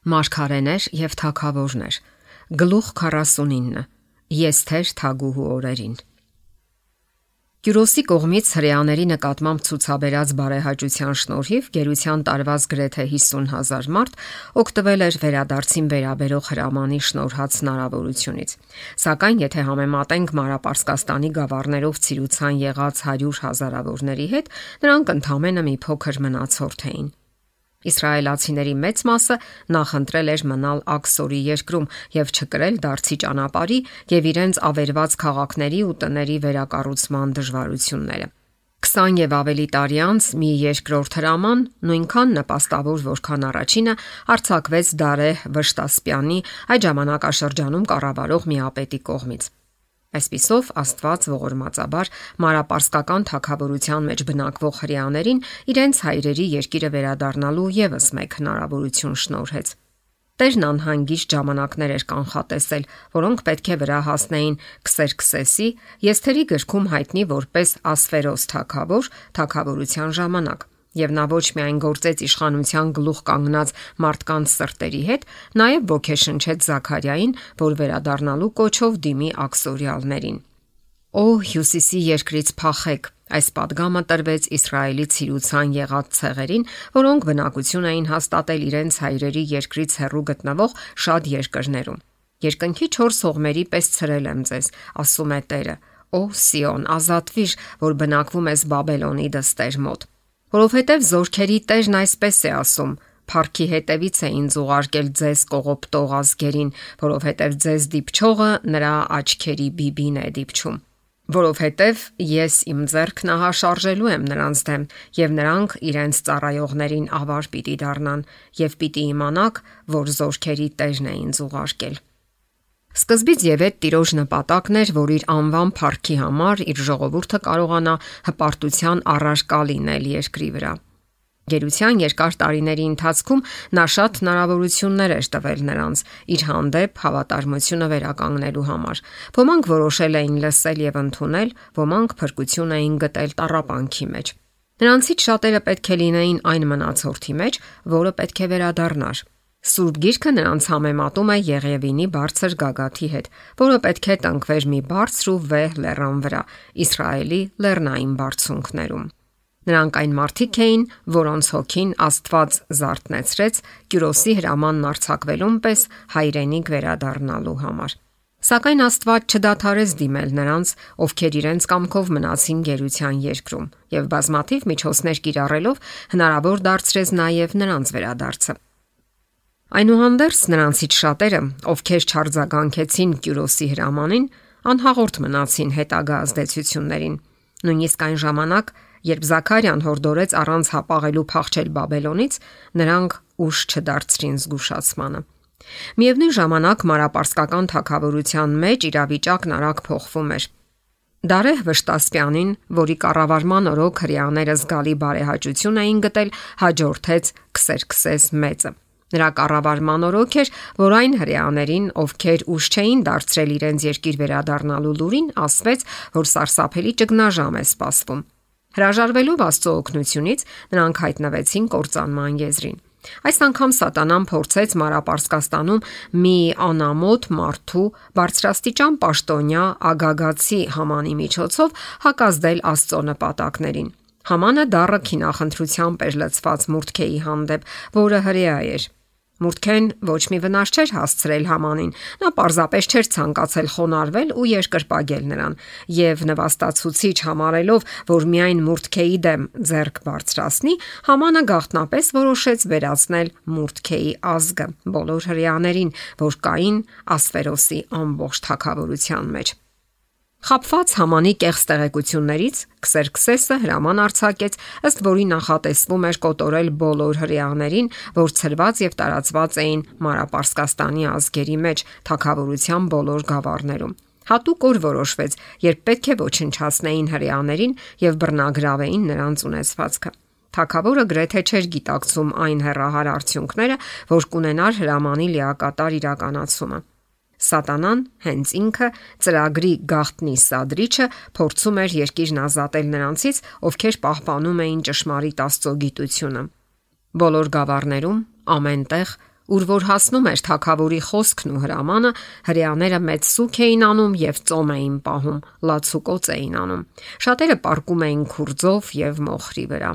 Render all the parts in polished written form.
Մարգարեներ եւ թագավորներ։ Գլուխ 49. Եսթեր թագուհու օրերին։ Կյուրոսի կողմից հրեաների նկատմամբ ցուցաբերած բարեհաճության շնորհիվ գերության տարված գրեթե 50,000 մարդ օգտվել էր վերադարձին վերաբերող հրամանի շնորհած հնարավորությունից։ Սակայն եթե համեմատենք Մանրապարսկաստանի գավառներով ցիրուցան եղած 100,000-ավորների հետ, նրանք ընդամենը մի փոքր մնացորդ էին։ Իսրայելացիների մեծ մասը նախընտրել էր մնալ Աքսորի երկրում եւ չկրել դարձի ճանապարհի եւ իրենց ավերված քաղաքների ու տների վերակառուցման դժվարությունները։ 20 եւ ավելի տարի անց մի երկրորդ հրաման, նույնքան նպաստավոր որքան առաջինը, արձակվեց Դարեհ Վշտասպյանի այդ ժամանակաշրջանում կառավարող միապետի կողմից։ Այսպիսով Աստված ողորմածաբար Մանրապարսկական թագավորության մեջ բնակվող հրեաներին իրենց հայրերի երկիրը վերադառնալու եւս մեկ հնարավորություն շնորհեց։ Տերն անհանգիստ ժամանակներ էր կանխատեսել, որոնք պետք է վրա հասնեին Քսերքսեսի, Եսթերի գրքում հայտնի որպես Ասվերոս թագավոր, թագավորության ժամանակ։ Եվ նա ոչ միայն գործեց իշխանության գլուխ կանգնած մարդկանց սրտերի հետ, նաև ոգեշնչեց Զաքարիային, որ վերադառնալու կոչով դիմի աքսորիալներին։ Օ հյուսիսի երկրից փախեք, այս падգամը տրվեց Իսրայելի ցիրուցան եղած ցեղերին, որոնք բնակություն էին հաստատել իրենց հայրերի երկրից հեռու գտնվող շատ երկրներում։ Երկնքի 4 հողմերի պես ցրել եմ ձեզ, ասում է Տերը։ Օ Սիոն, ազատվիր, որ բնակվում ես Բաբելոնի դստեր մոտ։ Որովհետև զորքերի Տերն այսպես է ասում. Փառքի հետևից է ինձ ուղարկել ձեզ կողոպտող ազգերին, որովհետև ձեզ դիպչողը նրա աչքերի բիբին է դիպչում։ Որովհետև ես իմ ձեռքն ահաշարժելու եմ նրանց դեմ, եւ նրանք իրենց ծառայողներին ավար պիտի դառնան, եւ պիտի իմանաք, որ զորքերի Տերն է ինձ ուղարկել։ Սկզբից եւ այդ Տիրոջ նպատակն էր, որ իր անվան փառքի համար իր ժողովուրդը կարողանա հպարտության առարկա լինել երկրի վրա։ Գերության երկար տարիների ընթացքում նա շատ հնարավորություններ էր տվել նրանց իր հանդեպ հավատարմությունը վերականգնելու համար։ Ոմանք որոշել էին լսել եւ ընդունել, ոմանք փրկություն էին գտել տառապանքի մեջ։ Նրանցից շատերը պետք է լինեին այն մնացորդի մեջ, որը պետք է վերադառնար։ Սուրբ Գիրքը նրանց համեմատում է Եղևինի բարձր գագաթի հետ, որը պետք է տնկվեր մի բարձր ու վեհ լեռան վրա, Իսրայելի լեռնային բարձունքներում։ Նրանք այն մարդիկ էին, որոնց հոգին Աստված զարթնեցրեց Կյուրոսի հրամանն արձակվելուն պես հայրենիք վերադառնալու համար։ Սակայն Աստված չդադարեց դիմել նրանց, ովքեր իրենց կամքով մնացին գերության երկրում, եւ բազմաթիվ միջոցներ կիրառելով հնարավոր դարձրեց նաեւ նրանց վերադարձը։ Այնուհանդերձ նրանցից շատերը, ովքեր չարձագանքեցին Կյուրոսի հրամանին, անհաղորդ մնացին հետագա ազդեցություններին։ Նույնիսկ այն ժամանակ, երբ Զաքարիան հորդորեց առանց հապաղելու փախչել Բաբելոնից, նրանք ուժ չդարձրին զգուշացմանը։ Միևնույն ժամանակ Մանրապարսկական թագավորության մեջ իրավիճակն արագ փոխվում էր։ Դարեհ Վշտասպյանին, որի կառավարման օրոք հրեաները զգալի բարեհաճություն էին գտել, հաջորդեց Քսերքսես մեծը։ Նրա կառավարման օրոք էր, որ այն հրեաներին, ովքեր ուժ չէին դարձրել իրենց երկիր վերադառնալու լուրին, ասվեց, որ սարսափելի ճգնաժամ է սպասվում։ Հրաժարվելով Աստծո օգնությունից, նրանք հայտնվեցին կործանման եզրին։ Այս անգամ Սատանան փորձեց Մանրապարսկաստանում մի անամոթ մարդու բարձրաստիճան պաշտոնյա Ագագացի Համանի միջոցով հակազդել Աստծո նպատակներին։ Համանը դառը քինախնդրությամբ էր լցված Մուրդքեի հանդեպ, որը հրեա էր։ Մուրդքեն ոչ մի վնաս չէր հասցրել Hamanին, նա պարզապես չէր ցանկացել խոնարհվել ու երկրպագել նրան, եւ նվաստացուցիչ համարելով, որ միայն Մուրդքեի դեմ ձեռք բարձրացնի, Համանը գաղտնապես որոշեց վերացնել Մուրդքեի ազգը բոլոր հրեաներին, որ կային Ասվերոսի ամբողջ թագավորության մեջ։ Խաբված Համանի կեղծ տեղեկություններից Քսերքսեսը հրաման արձակեց, ըստ որի նախատեսվում էր կոտորել բոլոր հրեաներին, որ ցրված եւ տարածված էին Մանրապարսկաստանի ազգերի մեջ թագավորության բոլոր գավառներում։ Հատուկ օր որոշվեց, երբ պետք է ոչնչացնեին հրեաներին եւ բռնագրավեին նրանց ունեցվածքը։ Թագավորը գրեթե չէր գիտակցում այն հեռահար արդյունքները, որ կունենար հրամանի լիակատար իրականացումը։ Սատանան հենց ինքը ծրագրի գաղտնի սադրիչը փորձում էր երկիրն ազատել նրանցից, ովքեր պահպանում էին ճշմարիտ Աստծո գիտությունը։ Բոլոր գավառներում ամենտեղ Ուր որ հասնում էր թագավորի խոսքն ու հրամանը, հրեաները մեծ սուք էին անում եւ ծոմ էին պահում, լացուկոծ էին անում։ Շատերը պառկում էին քուրձով եւ մոխրի վրա։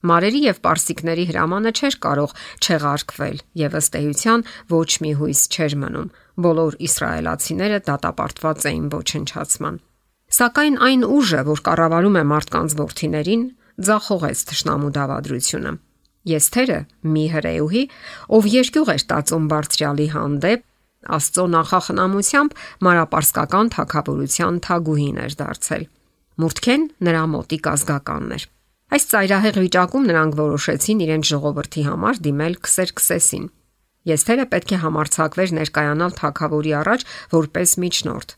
Մարերի եւ պարսիկների հրամանը չէր կարող չեղարկվել եւ ըստ էության ոչ մի հույս չէր մնում։ Բոլոր իսրայելացիները դատապարտված էին ոչնչացման։ Սակայն այն ուժը, որ կառավարում է մարդկանց որդիներին, ձախողեց թշնամու դավադրությունը։ Եսթերը մի հրեուհի, ով երկյուղ էր տածում բարձրյալի հանդեպ, Աստծո նախախնամությամբ մարապարսկական թագավորության թագուհին էր դարձել։ Մուրդքեն նրա մոտիկ ազգականն էր։ Այս ծայրահեղ վիճակում նրանք որոշեցին իրենց ժողովրդի համար դիմել Քսերքսեսին։ Եսթերը պետք է համարձակվեր ներկայանալ թագավորի առաջ որպես միջնորդ։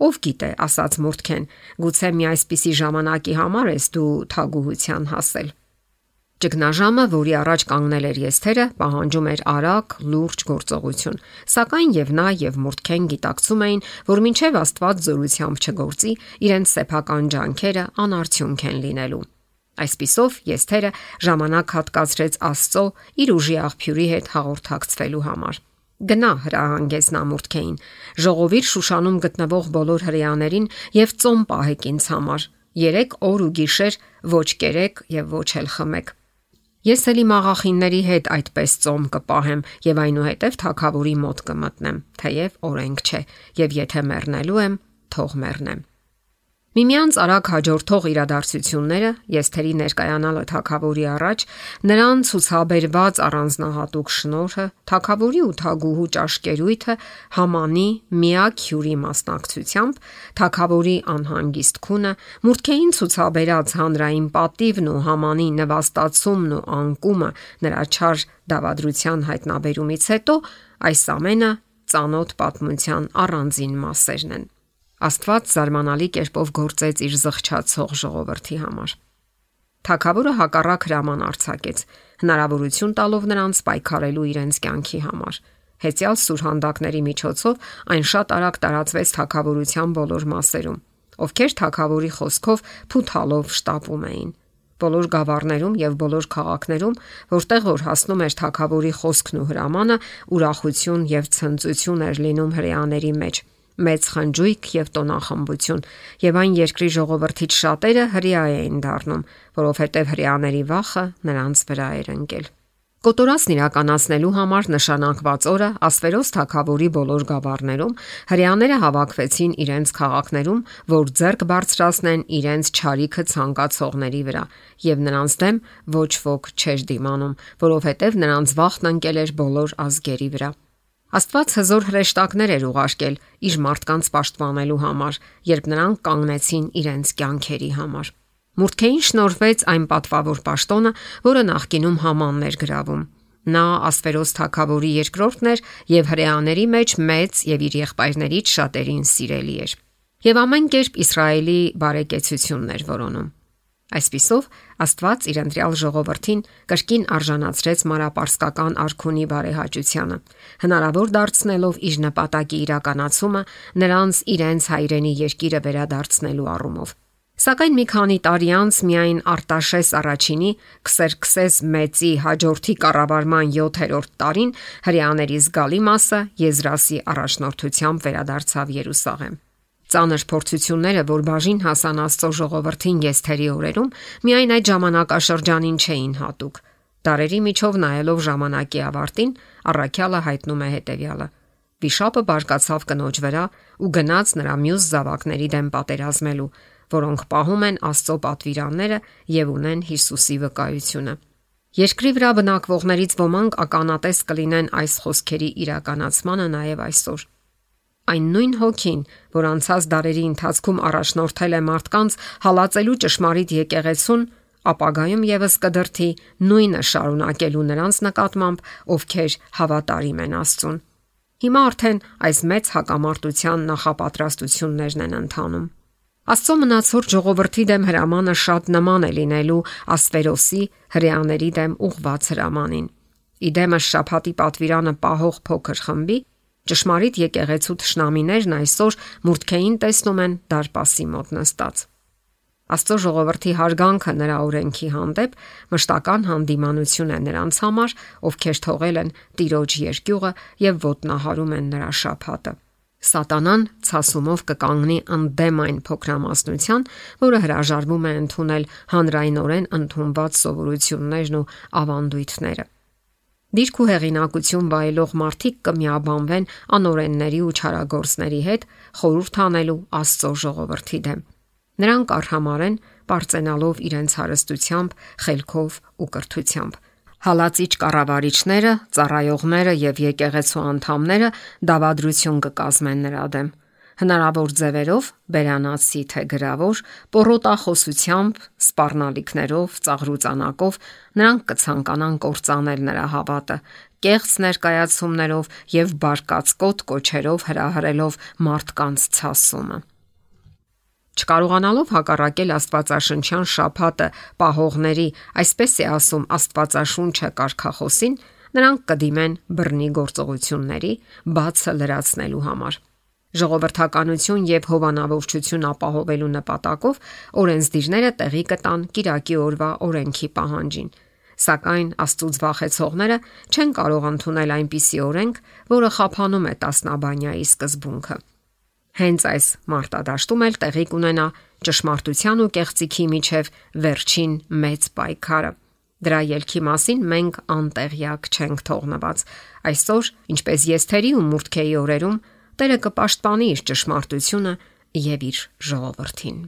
Ով գիտե, ասաց Մուրդքեն, գուցե մի այսպիսի ժամանակի համար ես դու թագուհության հասել։ Ճգնաժամը, որի առաջ կանգնել էր Եսթերը, պահանջում էր արագ, լուրջ գործողություն, սակայն եւ նա եւ Մուրդքեն գիտակցում էին, որ մինչեւ Աստված զորությամբ չգործի, իրենց սեփական ջանքերը անարդյունք են լինելու։ Այսպիսով Եսթերը ժամանակ հատկացրեց Աստծո իր ուժի աղբյուրի հետ հաղորդակցվելու համար։ Գնա, հրահանգեց նա Մուրդքեին, ժողովիր Շուշանում գտնվող բոլոր հրեաներին եւ ծոմ պահեք ինձ համար։ 3 օր ու գիշեր ոչ կերեք եւ ոչ էլ խմեք։ Ես էլի մաղախինների հետ այդպես ծոմ կպահեմ եւ այնուհետև թագավորի մոտ կմտնեմ, թեև օրենք չէ, եւ եթե մեռնելու եմ, թող մեռնեմ։ Միմյանց արագ հաջորդող իրադարձությունները, Եսթերի ներկայանալը թագավորի առաջ, նրան ցուցաբերված առանձնահատուկ շնորհը, թագավորի ու թագուհու ճաշկերույթը, Համանի միակ հյուրի մասնակցությամբ, թագավորի անհանգիստ քունը, Մուրդքեին ցուցաբերած հանրային պատիվն ու Համանի նվաստացումն ու անկումը նրա չար դավադրության հայտնաբերումից հետո, այս ամենը ծանոթ պատմության առանձին մասերն են։ Աստված զարմանալի կերպով գործեց իր զղջացող ժողովրդի համար։ Թագավորը հակառակ հրաման արձակեց, հնարավորություն տալով նրանց պայքարելու իրենց կյանքի համար։ Հեծյալ սուրհանդակների միջոցով այն շատ արագ տարածվեց թագավորության բոլոր մասերում, ովքեր թագավորի խոսքով փութալով շտապում էին։ Բոլոր գավառներում եւ բոլոր քաղաքներում, որտեղ որ հասնում էր թագավորի խոսքն ու հրամանը, ուրախություն եւ ցնծություն էր լինում հրեաների մեջ։ Մեծ խնջույք եւ տոնախմբություն, եւ այն երկրի ժողովրդից շատերը հրեա էին դառնում, որովհետեւ հրեաների վախը նրանց վրա էր ընկել։ Կոտորածն իրականացնելու համար նշանակված օրը Ասվերոս թագավորի բոլոր գավառներում հրեաները հավաքվեցին իրենց քաղաքներում, որ ձեռք բարձրացնեն իրենց ճարիքը ցանկացողների վրա, եւ նրանց դեմ ոչ ոք չէր դիմանում, որովհետեւ նրանց վախն ընկել էր բոլոր ազգերի վրա։ Աստված հզոր հրեշտակներ էր ուղարկել իր մարդկանց պաշտպանելու համար, երբ նրանք կանգնեցին իրենց կյանքերի համար։ Մուրդքեին շնորհվեց այն պատվավոր պաշտոնը, որը նախկինում Hamanն էր գրավում։ Նա Ասվերոս թագավորի երկրորդն էր եւ հրեաների մեջ մեծ եւ իր եղբայրներից շատերին սիրելի էր։ Եվ ամեն կերպ Իսրայելի բարեկեցությունն էր որոնում։ Այսպիսով Աստված իր ընտրյալ ժողովրդին կրկին արժանացրեց մարապարսկական արքունի բարեհաճությանը, հնարավոր դարձնելով իր նպատակի իրականացումը նրանց իրենց հայրենի երկիրը վերադարձնելու առումով։ Սակայն մի քանի տարի անց միայն Արտաշես առաջինի Քսերքսես մեծի հաջորդի կառավարման 7-րդ տարին հրեաների զգալի մասը Եզրասի առաջնորդությամբ վերադարձավ Երուսաղեմ։ Ծանր փորձությունները, որ բաժին հասան Աստծո ժողովրդին Եսթերի օրերում, միայն այդ ժամանակաշրջանին չէին հատուկ։ Դարերի միջով նայելով ժամանակի ավարտին, առաքյալը հայտնում է հետևյալը. Վիշապը բարկացավ կնոջ վրա ու գնաց նրա մյուս զավակների դեմ պատերազմելու, որոնք պահում են Աստծո պատվիրանները եւ ունեն Հիսուսի վկայությունը։ Երկրի վրա բնակվողներից ոմանք ականատես կլինեն այս խոսքերի իրականացմանը նաեւ այսօր։ Այն նույն հոգին, որ անցած դարերի ընթացքում առաջնորդել է մարդկանց հալածելու ճշմարիտ եկեղեցուն, ապագայում եւս կդրթի նույնը շարունակելու նրանց նկատմամբ, ովքեր հավատարիմ են Աստծուն։ Հիմա արդեն այս մեծ հակամարտության նախապատրաստություններն են ընթանում։ Աստծո մնացորդ ժողովրդի դեմ հրամանը շատ նման է լինելու Ասվերոսի հրեաների դեմ ուղված հրամանին։ Իդեմս շաբաթի պատվիրանը պահող փոքր խմբի ճշմարիտ եկեղեցու թշնամիներն այսօր Մուրդքեին տեսնում են դարպասի մոտ նստած։ Աստծո ժողովրդի հարգանքը նրա օրենքի հանդեպ մշտական հանդիմանություն է նրանց համար, ովքեր թողել են Տիրոջ երկյուղը եւ ոտնահարում են նրա շաբաթը։ Սատանան ցասումով կկանգնի ընդդեմ այն փոքրամասնության, որը հրաժարվում է ընդունել հանրայնորեն ընդունված սովորություններն ու ավանդույթները։ Դիրք ու հեղինակություն վայելող մարդիկ կմիաբանվեն անօրենների ու չարագործների հետ, խորհուրդ անելու Աստծո ժողովրդի դեմ։ Նրանք արհամարեն պարծենալով իրենց հարստությամբ, խելքով ու կրթությամբ։ Հալածիչ կառավարիչները, ծառայողները եւ եկեղեցու անդամները դավադրություն կկազմեն նրա դեմ։ Հնարավոր ձևերով, բերանացի թե գրավոր, պոռոտախոսությամբ, սպառնալիքներով, ծաղրուծանակով նրանք կցանկանան կործանել նրա հավատը, կեղծ ներկայացումներով եւ բարկացկոտ կոչերով հրահրելով մարդկանց ցասումը։ Չկարողանալով հակառակել Աստվածաշնչյան շաբաթը պահողների, այսպես է ասում Աստվածաշունչը կարգախոսին, նրանք կդիմեն բռնի գործողությունների, բացը լրացնելու համար։ Ժողովրդականություն եւ հովանավորչություն ապահովելու նպատակով օրենսդիրները տեղի կտան կիրակի օրվա օրենքի պահանջին։ Սակայն Աստծուց վախեցողները չեն կարող ընդունել այնպիսի օրենք, որը խափանում է տասնաբանյայի սկզբունքը։ Հենց այս մարտադաշտում էլ տեղի կունենա ճշմարտության ու կեղծիքի միջև վերջին մեծ պայքարը։ Դրա ելքի մասին մենք անտեղյակ չենք թողնված։ Այսօր, ինչպես Եսթերի ու Մուրդքեի օրերում, Տերը կպաշտպանի իր ճշմարտությունը եւ իր ժողովրդին։